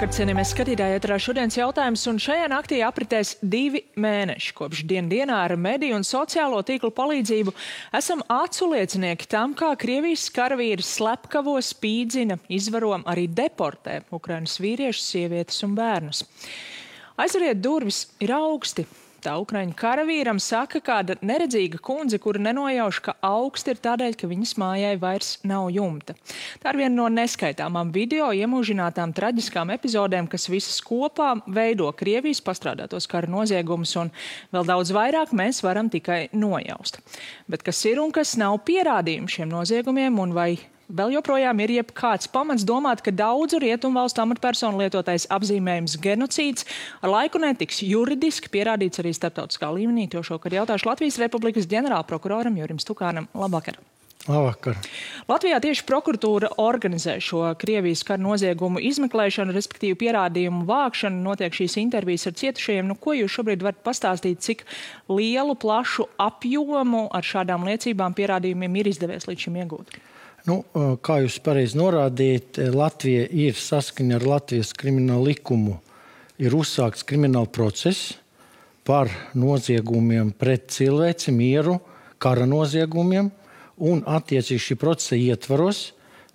Labvakar, cienījamies skatītāji, ēterā šodienas jautājums, un šajā naktī apritēs 2 mēneši, kopš dienā ar mediju un sociālo tīklu palīdzību esam aculiecinieki tam, kā Krievijas karavīri slepkavo, spīdzina, izvaro, arī deportē Ukrainas vīriešus, sievietes un bērnus. Aizveriet durvis ir augsti. Tā Ukraiņu karavīram saka kāda neredzīga kundze, kura nenojauš, ka augsti ir tādēļ, ka viņas mājai vairs nav jumta. Tā ir viena no neskaitāmām video iemūžinātām traģiskām epizodēm, kas visas kopā veido Krievijas pastrādātos kara noziegumus, un vēl daudz vairāk mēs varam tikai nojaust. Bet kas ir un kas nav pierādījumi šiem noziegumiem, un vai vēl joprojām ir jebkāds pamats domāt, ka daudzu rietumvalstu amatpersonu lietotais apzīmējums genocīds ar laiku netiks juridiski pierādīts arī starptautiskā līmenī. To šokar jautāšu Latvijas Republikas ģenerālprokuroram Jurim Stukānam. Labvakar! Labvakar! Latvijā tieši prokuratūra organizē šo Krievijas kara noziegumu izmeklēšanu, respektīvi pierādījumu vākšanu. Notiek šīs intervijas ar cietušajiem. Ko jūs šobrīd varat pastāstīt, cik lielu, plašu apjomu ar šādām liecībām pierādījumiem ir izdevies līdz šim iegūt? Kā jūs pareizi norādījāt, Latvija ir saskaņa ar Latvijas kriminālu likumu. Ir uzsākts krimināla process par noziegumiem pret cilvēci, mieru, kara noziegumiem, un attiecīgi šī procesa ietvaros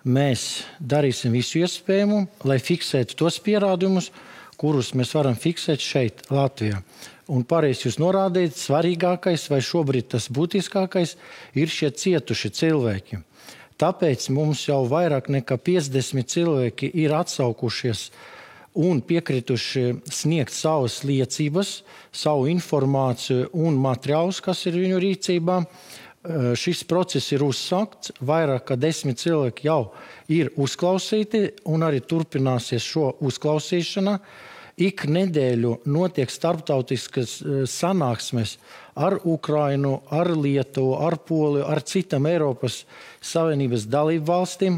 mēs darīsim visu iespējamo, lai fiksētu tos pierādījumus, kurus mēs varam fiksēt šeit, Latvijā. Un pareizi jūs norādījāt, svarīgākais vai šobrīd tas būtiskākais ir šie cietuši cilvēki. Tāpēc mums jau vairāk nekā 50 cilvēki ir atsaukušies un piekrituši sniegt savas liecības, savu informāciju un materiālus, kas ir viņu rīcībā. Šis process ir uzsākts, vairāk kā 10 cilvēki jau ir uzklausīti un arī turpināsies šo uzklausīšana. Ik nedēļu notiek starptautiskas sanāksmes ar Ukrainu, ar Lietuvu, ar Poliju, ar citām Eiropas Savienības dalību valstīm,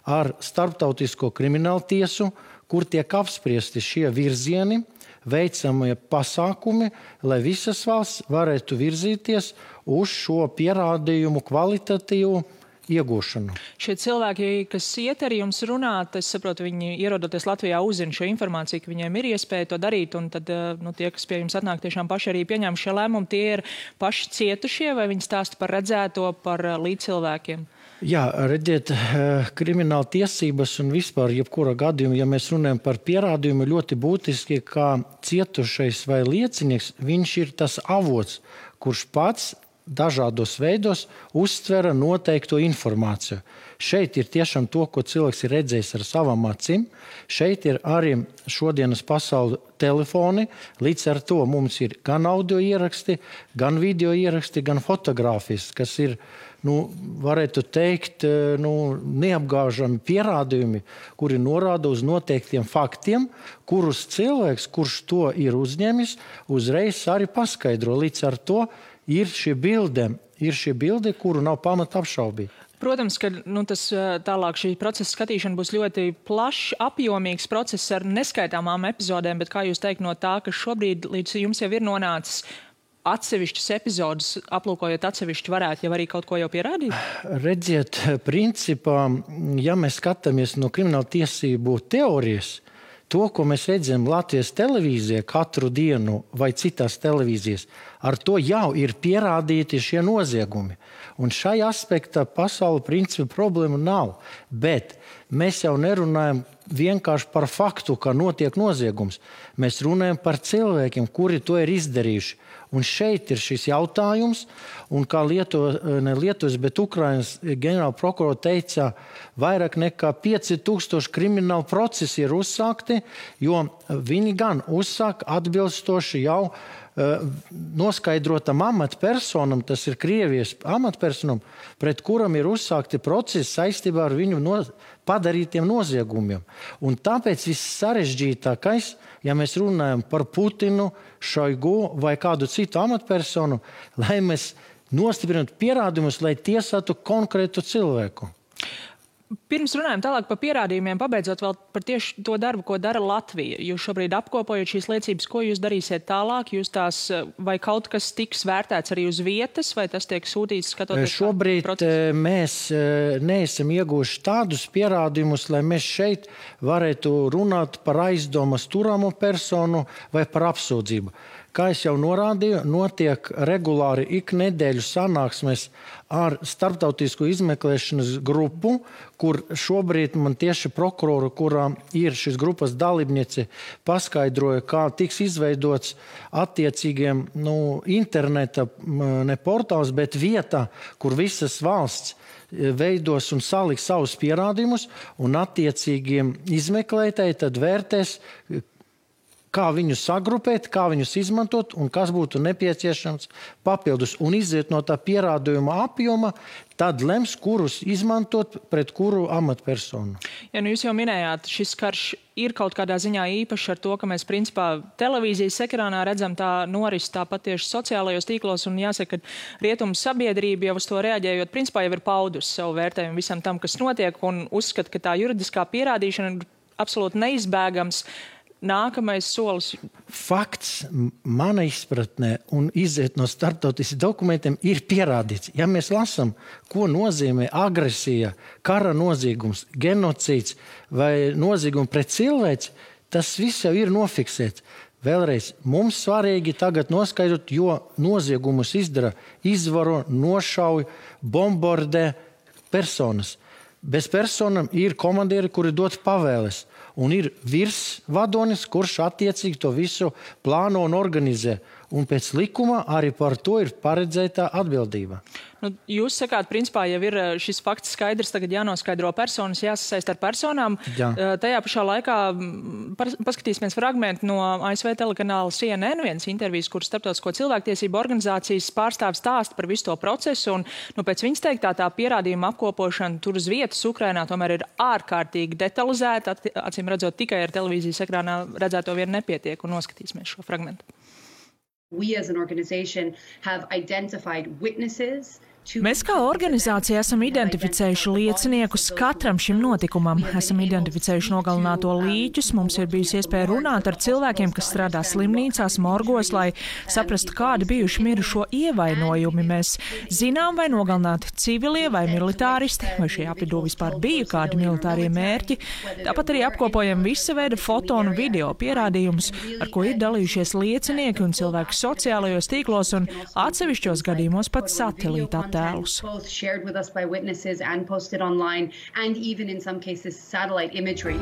ar starptautisko kriminālu tiesu, kur tiek apspriesti šie virzieni, veicamie pasākumi, lai visas valsts varētu virzīties uz šo pierādījumu kvalitatīvu iegūšanu. Šie cilvēki, kas iet arī jums runāt, es saprotu, viņi ierodoties Latvijā uzzina šo informāciju, ka viņiem ir iespēja to darīt, un tad tie, kas pie jums atnāk, tiešām paši arī pieņem šie lēmumi, tie ir paši cietušie, vai viņi stāsta par redzēto, par līdzcilvēkiem? Jā, redziet, krimināla tiesības un vispār jebkura gadījuma, ja mēs runājam par pierādījumu, ļoti būtiski, kā cietušais vai liecinieks, viņš ir tas avots, kurš pats dažādos veidos uztvera noteikto informāciju. Šeit ir tiešām to, ko cilvēks ir redzējis ar savām acīm. Šeit ir arī šodienas pasauli telefoni. Līdz ar to mums ir gan audio ieraksti, gan video ieraksti, gan fotogrāfijas, kas ir, varētu teikt, neapgāžami pierādījumi, kuri norāda uz noteiktiem faktiem, kurus cilvēks, kurš to ir uzņēmis, uzreiz arī paskaidro. Līdz ar to ir šī bilde, kuru nav pamata apšaubīt. Protams, ka tas tālāk šī procesa skatīšana būs ļoti plašs, apjomīgs process ar neskaitāmām epizodēm, bet kā jūs teikt no tā, ka šobrīd līdz jums jau ir nonācis atsevišķas epizodes, aplūkojot atsevišķi, varētu jau arī kaut ko jau pierādīt? Redziet, principā, ja mēs skatāmies no krimināla tiesību teorijas, to, ko mēs redzam Latvijas televīzijā katru dienu vai citās televīzijas, ar to jau ir pierādīti šie noziegumi. Un šai aspektā pasauli principi problēma nav. Bet mēs jau nerunājam vienkārši par faktu, ka notiek noziegums. Mēs runājam par cilvēkiem, kuri to ir izdarījuši. Un šeit ir šis jautājums, un kā Lietuvas, bet Ukrainas ģenerāla prokurora teica, vairāk nekā 5000 kriminālu procesi ir uzsākti, jo viņi gan uzsāk atbilstoši jau noskaidrotam amatpersonam, tas ir Krievijas amatpersonam, pret kuram ir uzsākti procesi saistībā ar viņu padarītiem noziegumiem. Un tāpēc viss sarežģītākais, ja mēs runājam par Putinu, Šoigu vai kādu citu amatpersonu, lai mēs nostiprinātu pierādījumus, lai tiesātu konkrētu cilvēku. Pirms runājam tālāk par pierādījumiem, pabeidzot vēl par tieši to darbu, ko dara Latvija. Jūs šobrīd apkopojat šīs liecības, ko jūs darīsiet tālāk? Jūs tās, vai kaut kas tiks vērtēts arī uz vietas, vai tas tiek sūtīts skatoties? Šobrīd mēs neesam ieguvuši tādus pierādījumus, lai mēs šeit varētu runāt par aizdomas turamo personu vai par apsūdzību. Kā es jau norādīju, notiek regulāri ik nedēļu sanāksmes ar starptautisku izmeklēšanas grupu, kur šobrīd man tieši prokurora, kurā ir šis grupas dalībniece, paskaidroja, kā tiks izveidots attiecīgiem interneta ne portāls, bet vieta, kur visas valsts veidos un saliks savus pierādījumus, un attiecīgiem izmeklētāji tad vērtēs, kā viņus sagrupēt, kā viņus izmantot un kas būtu nepieciešams papildus. Un iziet no tā pierādījuma apjoma, tad lems, kurus izmantot pret kuru amatpersonu. Ja, jūs jau minējāt, šis karš ir kaut kādā ziņā īpašs ar to, ka mēs principā televīzijas ekrānā redzam tā noris tāpat tieši sociālajos tīklos, un jāsaka, ka rietumu sabiedrība jau uz to reaģējot, principā jau ir paudusi savu vērtējumu visam tam, kas notiek, un uzskata, ka tā juridiskā pierādīšana ir absolūti neizbēgams. Nākamais solis. Fakts mana izpratnē un iziet no starptautiskiem dokumentiem ir pierādīts. Ja mēs lasām, ko nozīmē agresija, kara noziegums, genocīds vai noziegums pret cilvēci, tas viss jau ir nofiksēts. Vēlreiz, mums svarīgi tagad noskaidrot, jo noziegumus izdara, izvaro, nošauj, bombardē personas. Bez personam ir komandieri, kuri dod pavēles. Un ir virsvadonis, kurš attiecīgi to visu plāno un organizē. Un pēc likuma arī par to ir paredzēta atbildība. Jūs sakāt, principā jau ir šis fakts skaidrs, tagad jānoskaidro personas, jāsasaist ar personām. Jā. Tajā pašā laikā paskatīsimies fragmentu no ASV telekanāla CNN, viens intervijas, kur starptautisko cilvēktiesību organizācijas pārstāvis stāsta par visu to procesu. Un pēc viņas teiktā tā pierādījuma apkopošana tur uz vietas Ukrainā tomēr ir ārkārtīgi detalizēta. Acīm redzot, tikai ar televīzijas ekrānā redzēto vien nepietiek, un noskatīsimies šo fragmentu. We as an organization have identified witnesses. Mēs kā organizācija esam identificējuši lieciniekus katram šim notikumam. Esam identificējuši nogalināto līķus, mums ir bijusi iespēja runāt ar cilvēkiem, kas strādā slimnīcās, morgos, lai saprastu, kādi bijuši mirušo ievainojumi. Mēs zinām, vai nogalināti civilie vai militāristi, vai šie apvidū vispār bija kādi militārie mērķi. Tāpat arī apkopojam visa veida foto un video pierādījumus, ar ko ir dalījušies liecinieki un cilvēki sociālajos tīklos un atsevišķos gadījumos pat satelīta attēlus. Both shared with us by witnesses and posted online, and even in some cases satellite imagery.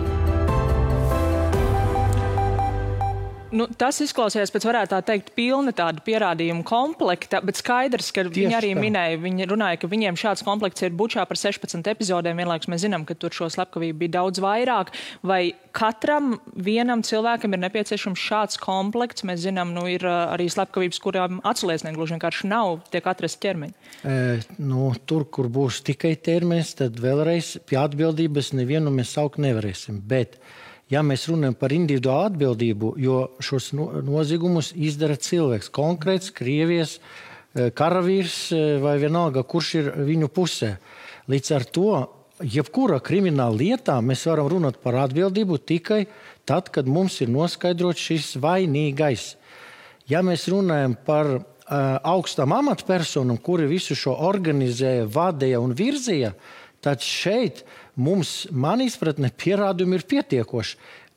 Tas izklausījās pēc, varētu tā teikt, pilna tāda pierādījuma komplekta, bet skaidrs, ka viņi arī minēja, viņi runāja, ka viņiem šāds komplekts ir Bučā par 16 epizodēm. Vienlaikus mēs zinām, ka tur šo slepkavību bija daudz vairāk. Vai katram vienam cilvēkam ir nepieciešams šāds komplekts? Mēs zinām, ir arī slepkavības, kurām atsliecinieki gluži vienkārši nav, tiek atrasti ķermeņi. Tur, kur būs tikai ķermenis, tad vēlreiz pie atbildības nevienu mēs saukt nevarēsim. Bet ja mēs runājam par individuālu atbildību, jo šos noziegumus izdara cilvēks, konkrēts Krievijas karavīrs vai vienalga, kurš ir viņu pusē. Līdz ar to, jebkura krimināla lietā mēs varam runāt par atbildību tikai tad, kad mums ir noskaidrots šis vainīgais. Ja mēs runājam par augstām amatpersonām, kuri visu šo organizēja, vadīja un virzīja, tad šeit mums, man izpratne, pierādījumi ir pietiekoši,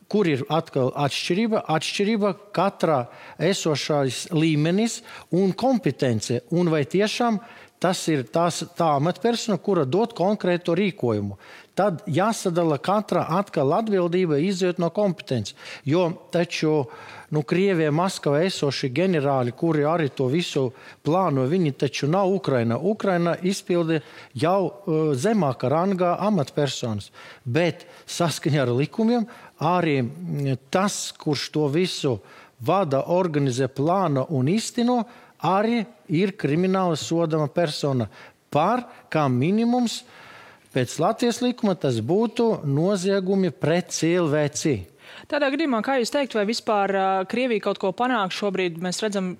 kur ir atkal atšķirība katrā esošais līmenis un kompetence. Un vai tiešām tas ir tā amatpersona, kura dod konkrētu rīkojumu. Tad jāsadala katra atkal atbildība iziet no kompetences. Jo taču Krievijā, Maskavā esoši ģenerāļi, kuri arī to visu plāno, viņi taču nav Ukraina. Ukraina izpildi jau zemāka rangā amatpersonas. Bet saskaņā ar likumiem arī tas, kurš to visu vada, organizē, plāno un īsteno, arī ir krimināli sodama persona par, kā minimums, pēc Latvijas likuma tas būtu noziegumi pret cilvēci. Tādā gadījumā, kā jūs teikt, vai vispār Krievija kaut ko panāk šobrīd? Mēs redzam,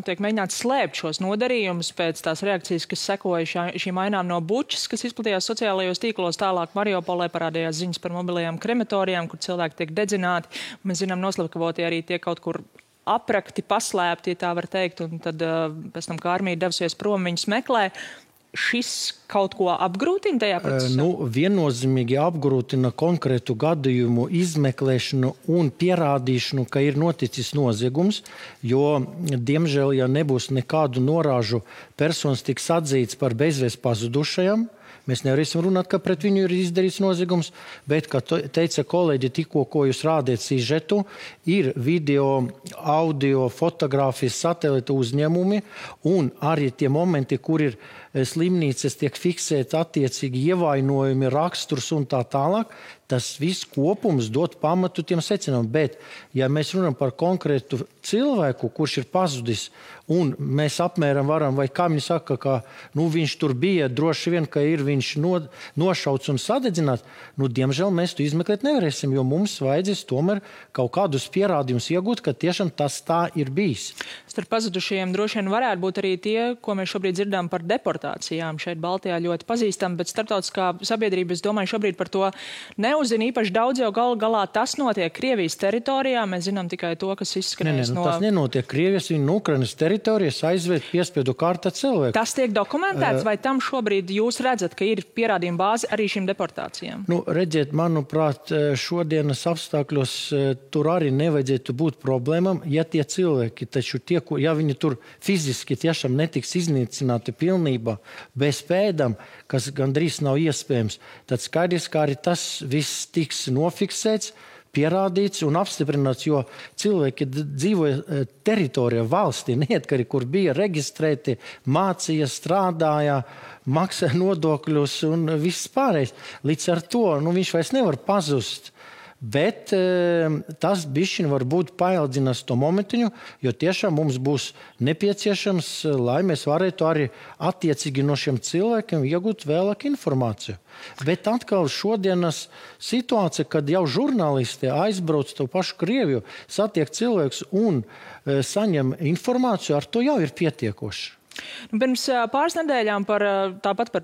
tiek mēģināts slēpt šos nodarījumus pēc tās reakcijas, kas sekoja šīm ainām no Bučas, kas izplatījās sociālajos tīklos. Tālāk Mariupolē parādījās ziņas par mobilajām krematorijām, kur cilvēki tiek dedzināti. Mēs zinām, noslapkavotie arī tiek kaut kur aprakti, paslēpti, ja tā var teikt, un tad pēc tam, kā armija devusies prom, viņus meklē. Šis kaut ko apgrūtina tajā procesā? Viennozīmīgi apgrūtina konkrētu gadījumu izmeklēšanu un pierādīšanu, ka ir noticis noziegums, jo, diemžēl, ja nebūs nekādu norāžu, personas tiks atzīts par bezvēst pazudušajām. Mēs nevarēsim runāt, ka pret viņu ir izdarīts noziegums, bet, kā teica kolēģi, tikko, ko jūs rādījat sižetu, ir video, audio, fotogrāfijas, satelīta uzņēmumi un arī tie momenti, kur ir slimnīcas tiek fiksēti attiecīgi ievainojumi, raksturs un tā tālāk. Tas viss kopums dod pamatu tiem secinājumiem. Bet, ja mēs runājam par konkrētu cilvēku, kurš ir pazudis, un mēs apmēram varam, vai kā viņi saka, ka viņš tur bija, droši vien, ka ir viņš nošauts un sadedzināts, diemžēl mēs to izmeklēt nevarēsim, jo mums vajadzēs tomēr kaut kādus pierādījumus iegūt, ka tiešām tas tā ir bijis. Starp pazudušajiem droši vien varētu būt arī tie, ko mēs šobrīd dzirdām par deportācijām. Šeit Baltijā ļoti pazīstam, bet starptautiskā sabiedrība, es domāju, šobrīd par to neuzzina īpaši daudz, jo galu galā tas notiek Krievijas teritorijā. Mēs zinām tikai to, kas izskanēs no... Tas nenotiek Krievijas, viņa no Ukrainas teritorijas aizved piespiedu kārta cilvēku. Tas tiek dokumentēts, vai tam šobrīd jūs redzat, ka ir pierādījuma bāze arī šīm deportācijām? Redziet, manuprāt, šodienas apstākļos tur arī nevajadzētu būt problēmām, ja tie cilvēki, taču tie, ja viņi tur fiziski tiešām netiks iznīcināti pilnībā bez pēdām, kas gandrīz nav iespējams, tad skaidrs, ka arī tas viss tiks nofiksēts, pierādīts un apstiprināts, jo cilvēki dzīvoja teritorijā valstī, neatkarīgi, kur bija reģistrēti, mācīja, strādāja, maksāja nodokļus un viss pārējais. Līdz ar to viņš vairs nevar pazust. Bet tas bišķiņ varbūt paildzinās to momentiņu, jo tiešām mums būs nepieciešams, lai mēs varētu arī attiecīgi no šiem cilvēkiem iegūt vēlāk informāciju. Bet atkal šodienas situācija, kad jau žurnālisti aizbrauc to pašu Krieviju, satiek cilvēkus un saņem informāciju, ar to jau ir pietiekoši. Pirms pāris nedēļām tāpat par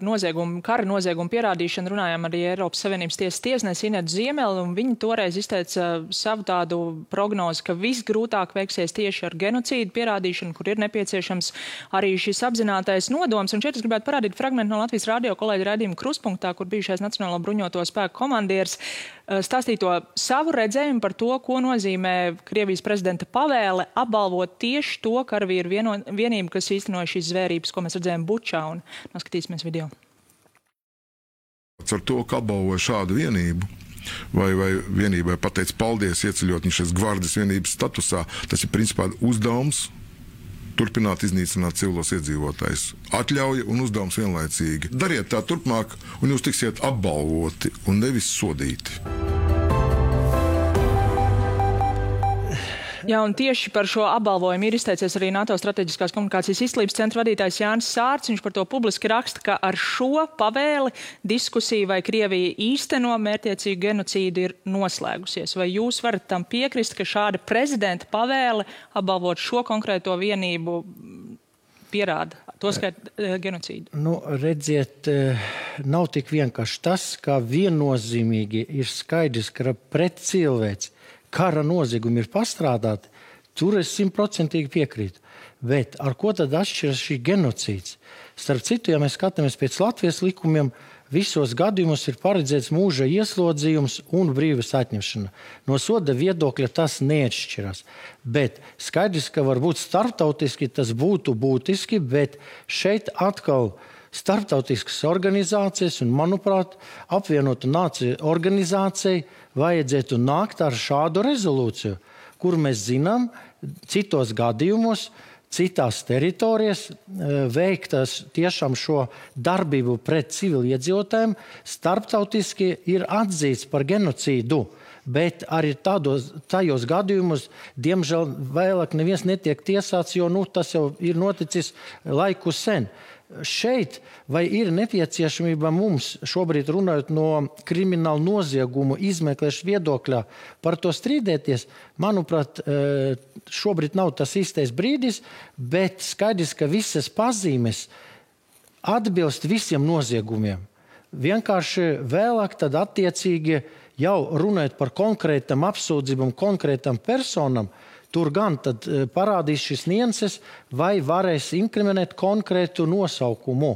kara noziegumu pierādīšanu runājām arī Eiropas Savienības tiesas tiesnesi Inetu Ziemeli, un viņi toreiz izteica savu tādu prognozi, ka visgrūtāk veiksies tieši ar genocīdu pierādīšanu, kur ir nepieciešams arī šis apzinātais nodoms. Un šeit es gribētu parādīt fragmentu no Latvijas radio kolēģa raidījuma Kruspunktā, kur bijušais Nacionālo bruņoto spēku komandieris stāstīja to savu redzējumu par to, ko nozīmē Krievijas prezidenta pavēle apbalvot tieši to karavīru vienību, kas īstenoja šīs zvērības, ko mēs redzējām Bučā, un noskatīsimies video. Ar to, ka apbalvoja šādu vienību, vai vienībai pateic paldies, ieceļot viņas gvardes vienības statusā, tas ir principā uzdevums turpināt iznīcināt civilos iedzīvotājus. Atļauja un uzdevums vienlaicīgi. Dariet tā turpmāk, un jūs tiksiet apbalvoti un nevis sodīti. Jā, un tieši par šo apbalvojumu ir izteicies arī NATO strateģiskās komunikācijas izglītības centra vadītājs Jānis Sārts. Viņš par to publiski raksta, ka ar šo pavēli diskusija, vai Krievija īsteno mērķiecīgu genocīdu, ir noslēgusies. Vai jūs varat tam piekrist, ka šāda prezidenta pavēle apbalvot šo konkrēto vienību pierāda to skait genocīdu? Redziet, nav tik vienkārši tas, ka viennozīmīgi ir skaidrs, ka pret cilvēci kara noziegumi ir pastrādāti, tur es 100% piekrītu. Bet ar ko tad atšķiras šī genocīds? Starp citu, ja mēs skatāmies pēc Latvijas likumiem, visos gadījumos ir paredzēts mūža ieslodzījums un brīvības atņemšana. No soda viedokļa tas neatšķirās. Bet skaidrs, ka varbūt starptautiski tas būtu būtiski, bet šeit atkal starptautiskas organizācijas un, manuprāt, apvienotu nāciju organizācijai vajadzētu nākt ar šādu rezolūciju, kur mēs zinām, citos gadījumos, citās teritorijas veiktas tiešām šo darbību pret civiliedzīvotājiem starptautiski ir atzīts par genocīdu. bet arī tajos gadījumos, diemžēl, vēlāk neviens netiek tiesāts, jo tas jau ir noticis laiku sen. Šeit vai ir nepieciešamība mums šobrīd runājot no kriminālu noziegumu izmeklēšanas viedokļā par to strīdēties? Manuprāt, šobrīd nav tas īstais brīdis, bet skaidrs, ka visas pazīmes atbilst visiem noziegumiem. Vienkārši vēlāk tad attiecīgi jau runājot par konkrētam apsūdzībam, konkrētam personam, tur gan tad parādīs šis nianses, vai varēs inkriminēt konkrētu nosaukumu.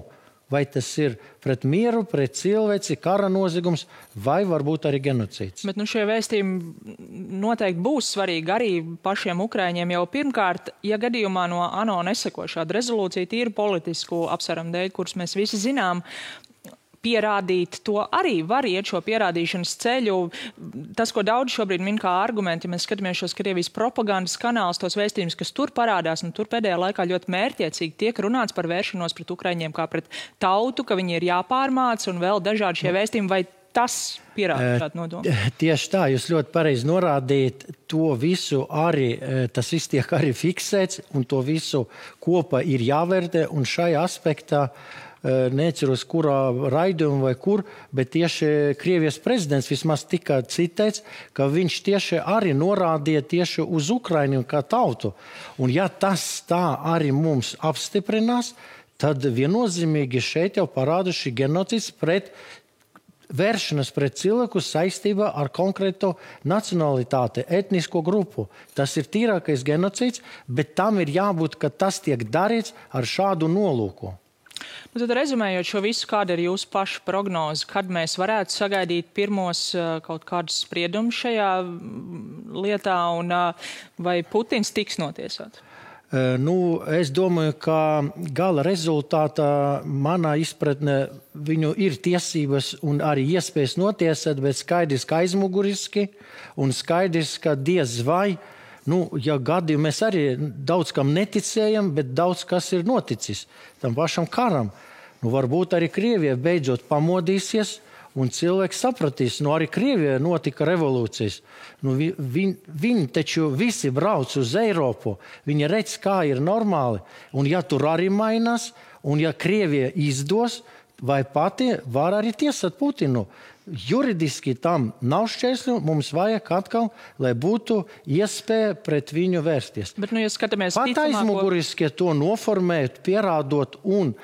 Vai tas ir pret mieru, pret cilvēci, kara noziegums, vai varbūt arī genocīds. Bet šie vēstījumi noteikti būs svarīgi arī pašiem ukraiņiem. Jau pirmkārt, ja gadījumā no ANO neseko šāda rezolūcija tīri politisku apsvērumu dēļ, kurus mēs visi zinām, pierādīt, to arī var iet šo pierādīšanas ceļu. Tas, ko daudz šobrīd min kā argumenti, ja mēs skatāmies šos Krievijas propagandas kanālus, tos vēstījumus, kas tur parādās, un tur pēdējā laikā ļoti mērķiecīgi tiek runāts par vēršanos pret ukraiņiem kā pret tautu, ka viņi ir jāpārmāc un vēl dažādi šie vēstījumi, vai tas pierāda šādu nodomu? Tieši tā, jūs ļoti pareizi norādījat, to visu arī, tas viss tiek arī fiksēts, un to visu kopā ir jāvērtē, un šajā aspektā neceros, kurā raidījumā vai kur, bet tieši Krievijas prezidents vismaz tika citēts, ka viņš tieši arī norādīja tieši uz Ukrainu kā tautu. Un ja tas tā arī mums apstiprinās, tad viennozīmīgi šeit jau parāda šī genocīds pret vēršanas pret cilvēku saistībā ar konkrēto nacionalitāti, etnisko grupu. Tas ir tīrākais genocīds, bet tam ir jābūt, ka tas tiek darīts ar šādu nolūku. Tad rezumējot šo visu, kāda ir jūsu paša prognoze, kad mēs varētu sagaidīt pirmos kaut kādus spriedumus šajā lietā un vai Putins tiks notiesāts? Es domāju, ka gala rezultātā manā izpratnē viņu ir tiesības un arī iespējas notiesāt, bet skaidrs, ka aizmuguriski un skaidrs, ka diez vai, ja gadījumā mēs arī daudz kam neticējam, bet daudz kas ir noticis tam pašam karam. Varbūt arī Krievija beidzot pamodīsies un cilvēks sapratīs, arī Krievijā notika revolūcijas. Viņi taču visi brauc uz Eiropu, viņi redz, kā ir normāli, un ja tur arī mainās, un ja Krievija izdos, vai pati var arī tiesāt Putinu. Juridiski tam nav šķērsļu, mums vajag atkal, lai būtu iespēja pret viņu vērsties. Bet, ja skatāmies pat aizmuguriski to noformēt, pierādot un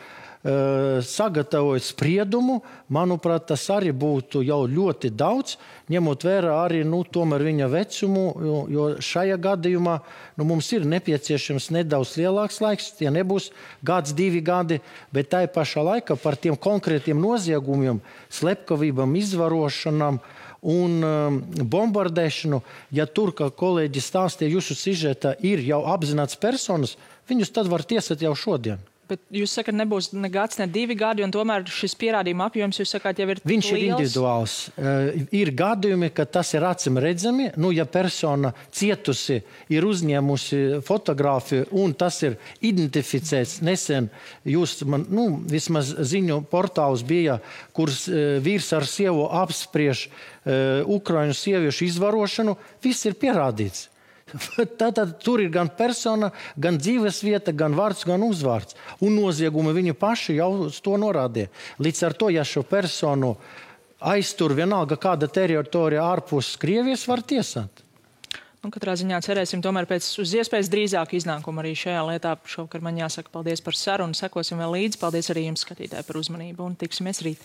sagatavojot spriedumu, manuprāt, tas arī būtu jau ļoti daudz, ņemot vērā arī tomēr viņa vecumu, jo šajā gadījumā mums ir nepieciešams nedaudz lielāks laiks, tie nebūs gads, 2 gadi, bet tai pašā laikā par tiem konkrētiem noziegumiem, slepkavībām, izvarošanām un bombardēšanu, ja tur, kā kolēģi stāstīja, jūsu sižetā ir jau apzināts personas, viņus tad var tiesāt jau šodien. Bet jūs sakat, nebūs ne gads, ne 2 gadi, un tomēr šis pierādījuma apjoms, jūs sakāt, jau ir liels? Viņš ir individuāls. Ir gadījumi, ka tas ir acim redzami. Ja persona cietusi ir uzņēmusi fotogrāfiju, un tas ir identificēts nesen, vismaz ziņu portāls bija, kurs vīrs ar sievu apspriež Ukraiņu sieviešu izvarošanu, viss ir pierādīts. Tātad tur ir gan persona, gan dzīves vieta, gan vārds, gan uzvārds. Un noziegumi viņi paši jau uz to norādīja. Līdz ar to, ja šo personu aiztur vienalga kāda teritorija ārpus Krievijas, var tiesāt. Katrā ziņā cerēsim tomēr uz iespējas drīzāk iznākumu arī šajā lietā. Šovakar man jāsaka paldies par sarunu, sekosim vēl līdzi. Paldies arī jums, skatītāji, par uzmanību un tiksimies rīt.